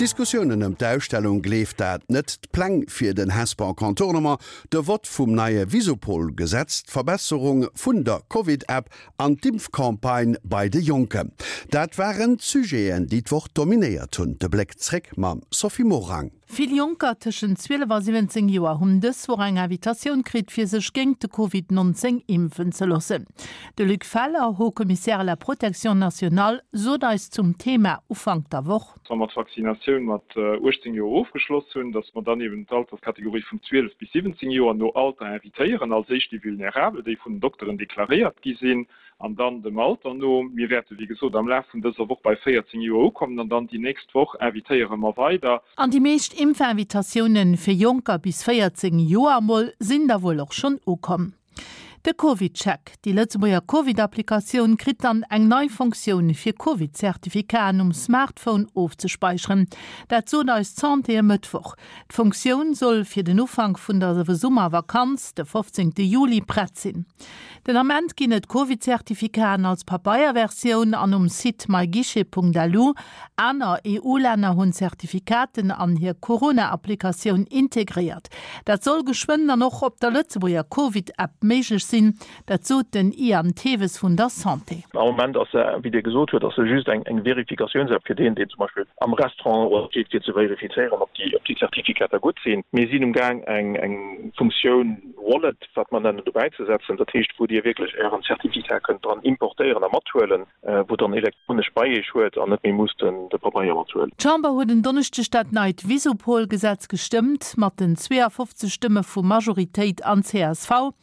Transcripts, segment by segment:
D'Diskussiounen ëm d'Ausstellung Gleeft dat net, d'Pläng fir den Hesper Contournement, de Vott vum neie Visupol-Gesetz, d'Verbesserung vun der Covid-App an d'Impfcampagne bei de Jonken, dat waren d'Sujeten, déi d'Woch dominéiert hunn. De Bléck zréck mam Sophie Morang. Vill Jonker tëschent 12 a 17 Joer hunn dës Woch eng Invitatioun kritt, fir sech géingt de Covid 19 impfen ze loossen. De Luc Feller, Haut Commissaire à la protection nationale, sot eis zum Thema Ufank der Woch. Wa mer d'Vaccinatioun mat 18 Joer ofgeschloss hunn, datt mer dann eben d'Alterskategorie vun 12 bis 17 Joer no Alter invitéieren, als éischt déi Vulnerabel, déi vun den Dokteren deklaréiert gi sinn, an dann dem Alter no. Mir wäerte wéi gesot am Laf vun dëser Woch bei 14 Joer ukommen an dann déi nächst Woch invitéiere mer weider. An déi meescht Impfinvitatioune fir Jonker bis 14 Joer emol sinn da wuel och schonn ukomm. De CovidCheck, déi Lëtzebuerger Covid-Applikatioun, kritt dann eng nei Funktioun fir Covid-Certificaten um Smartphone ofzespäicheren. Dat sot eis d'Santé e Mëttwoch. D'Funktioun soll fir den Ufank vun der Summervakanz, de 15 Juli, prett sinn. Den Ament ginn et Covid-Certificaten als Pabeierversioun an um Site myguichet.lu. Aner EU-Länner hunn Certificaten an hir Corona-Applikatioun integréiert. Dat soll geschwënn dann och op der Lëtzebuerger Covid-App méiglech sinn. Dat sot den Ian Theves vun der Santé. Am Moment ass se, wéi Dir gesot huet, ass se just eng Verifikatiounsapp fir deen, deen zum Beispill am Restaurant steet, fir ze verifizéieren, ob déi Zertifikater gutt sinn. Mir sinn um Gaang, eng Funktioun Wallet, wat mer nennen, dobäizesetzen, dat heescht, wou Dir wierklech Ären Zertifikat kënnt dran importéieren a mathuelen, wou dann elektronesch bei Iech huet an net méi musst de Pabeier mathuelen. D'Chamber huet en Donneschdeg dat neit Visupol-Gesetz gestëmmt, mat den 52 Stëmme vu Majoritéit an csv.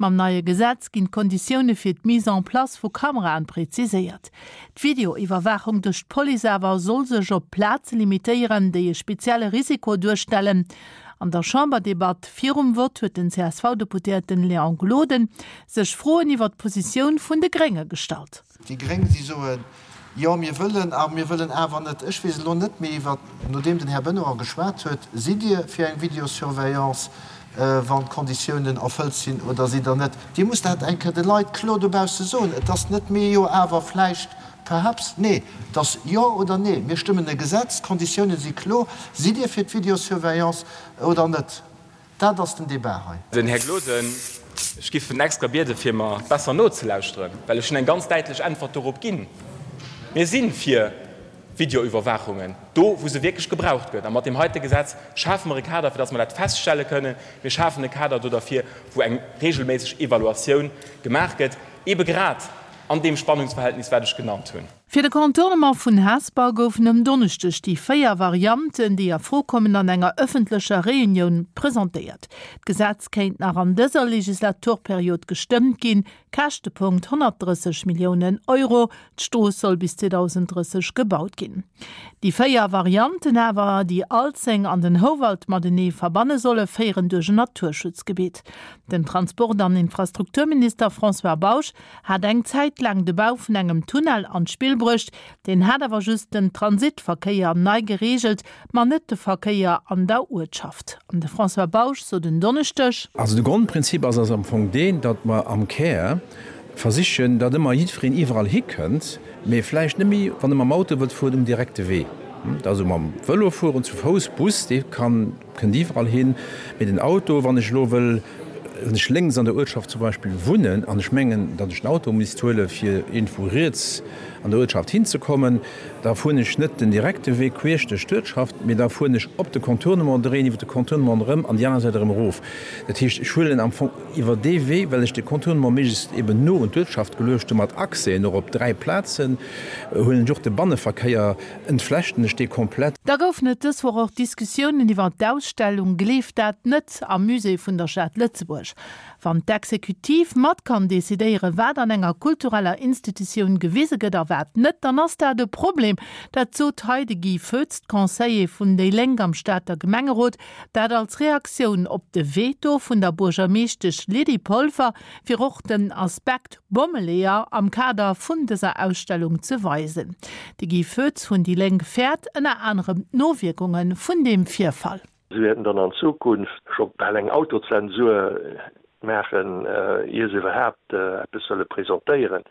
Mam neie Gesetz ginn d'Konditioune fir d'Mise en place vu Kameraen preziséiert. D'Videoiwwerwaachung duerch d'Police awer soll sech op Plaze limitéieren, déi e spezielle Risiko duerstellen. An der Chamberdebatt virum Vott huet den CSV-Deputéierten Léon Gloden sech Froen iwwer d'Positioun vun de Grénge gestallt. Déi Gréng, si soen, Jo, mir wëllen a mir wëllen awer net. Ech weess elo net méi, iwwer, nodeem den Här Benoy geschwat huet, Sidd Dir fir eng Videosurveillance, wann d'Konditiounen erfëllt sinn, oder sidd Der net? Dir musst dat eng Kéier de Leit kloer dobausse soen. Et ass net mee, jo, awer, vläicht, perhaps. Nee, et ass jo oder nee. Mir stëmmen e Gesetz, d'Konditiounen si kloer. Sidd Dir fir d'Videosurveillance oder net? Dat ass den Débat hei. Den Här Gloden, ech giff en extra bieden, fir mer besser nozelauschteren, well ech hunn eng ganz däitlech Äntwert dorop ginn. Mir si fir Videoüberwaachungen, do wou se wierklech gebraucht gëtt. A mat deem heite Gesetz schafe mer e Kader, fir datt mer dat feststelle kënnen. Mir schafen e Kader do derfir, wou eng regelméisseg Evaluatioun gemaach gëtt, eebe grad an deem Spannungsverhältnis, wat ech genannt hunn. Fir de Contournement vun Hesper goufen um Donneschdeg déi 4 Varianten, déi a Fro kommen, an enger ëffentlecher Reunioun presentéiert. D'Gesetz kéint nach an dëser Legislaturperiod gestëmmt ginn. Käschtepunkt 130 Milliounen Euro. D'Strooss soll bis 2030 gebaut ginn. Déi 4 Varianten awer, déi Alzeng an den Houwald matenee verbanne solle, féieren duerch en Naturschutzgebitt. Den Transport an Infrastrukturminister François Bausch hat eng Zäit laang de Bau vun engem Tunnel an d'Spill bruecht, deen hat awer just den Transitverkéier nei gereegelt, ma net de Verkéier an der Uertschaft. An de François Bausch sot en Donneschdeg. Also de Grondprinzip ass ass am Fong deen, datt mer am Kär versichen, datt ëmmer jiddwereen iwwerall hikënnt, mee vläicht net méi, wann e mam Auto wëllt fueren, um direkte Wee. Also mam Vëlo fueren, zu Fouss, Bus, dee kann. Kënnt iwwerall hin. Mee den Auto, wann ech elo wëll, wann ech lénks an der Uertschaft zum Beispill wunnen an ech mengen, datt ech den Auto misst huele fir iergendwou riets an der Uertschaft hinzekommen, da fueren ech net den direkte Wee queesch duerch d'Uertschaft, mee da fueren ech op de Contournement, dréien iwwer de Contournement erëm an déi aner Säit erëm erof. Dat heescht, ech huelen am Fong iwwer dee Wee, well ech de Contournement méiglechst eben no un d'Uertschaft geluecht hu mat Accèsen och op 3 Plazen, huelen ech och de Banneverkéier Entflechten ech dee komplett. Da goufen et dës Woch och Diskussiounen iwwer d'Ausstellung Gleeft dat net am Musée vun der Stad Lëtzebuerg. Wann d'Exekutiv mat kann decidéieren, wat an enger kultureller Institutioun gewise gëtt a wat net, dann ass dat e Problem. Dat sot hei de Guy Foetz, Conseiller vun déi Lénk am Stater Gemengerot. Dat als Reaktioun op de Veto vun der Buergermeeschtesch Lydie Polfer, fir och den Aspekt Bommeleeër am Kader vun dëser Ausstellung ze weisen. De Guy Foetz vun déi Lénk fäert ënner anerem d'Nowierkunge vun deem Virfall. Si wäerten dann an Zukunft scho bal eng Autozensur maachen, ier se iwwerhaapt eppes wëlle presentéieren.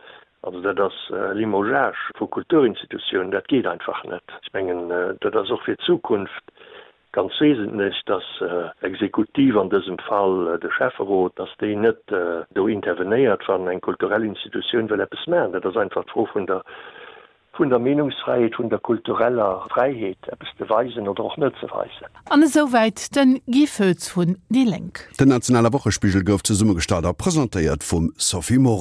Also dat ass Limogeage vu Kulturinstitutiounen, dat geet einfach net. Ech mengen, dat ass och fir d'Zukunft ganz wesentlech, dass d'Exekutiv, an dësem Fall de Schäfferot, dass déi net do intervenéiert, wann eng kulturell Institutioun wëll eppes maachen. Dat ass einfach d'Fro vun der vun der Meenungsfräiheet, vun der kultureller Fräiheet, eppes ze weisen oder och net ze weisen. An esouwäit den Guy Foetz vun déi Lénk. Den nationale Wochespigel gouf zesummegestallt a presentéiert vum Sophie Morang.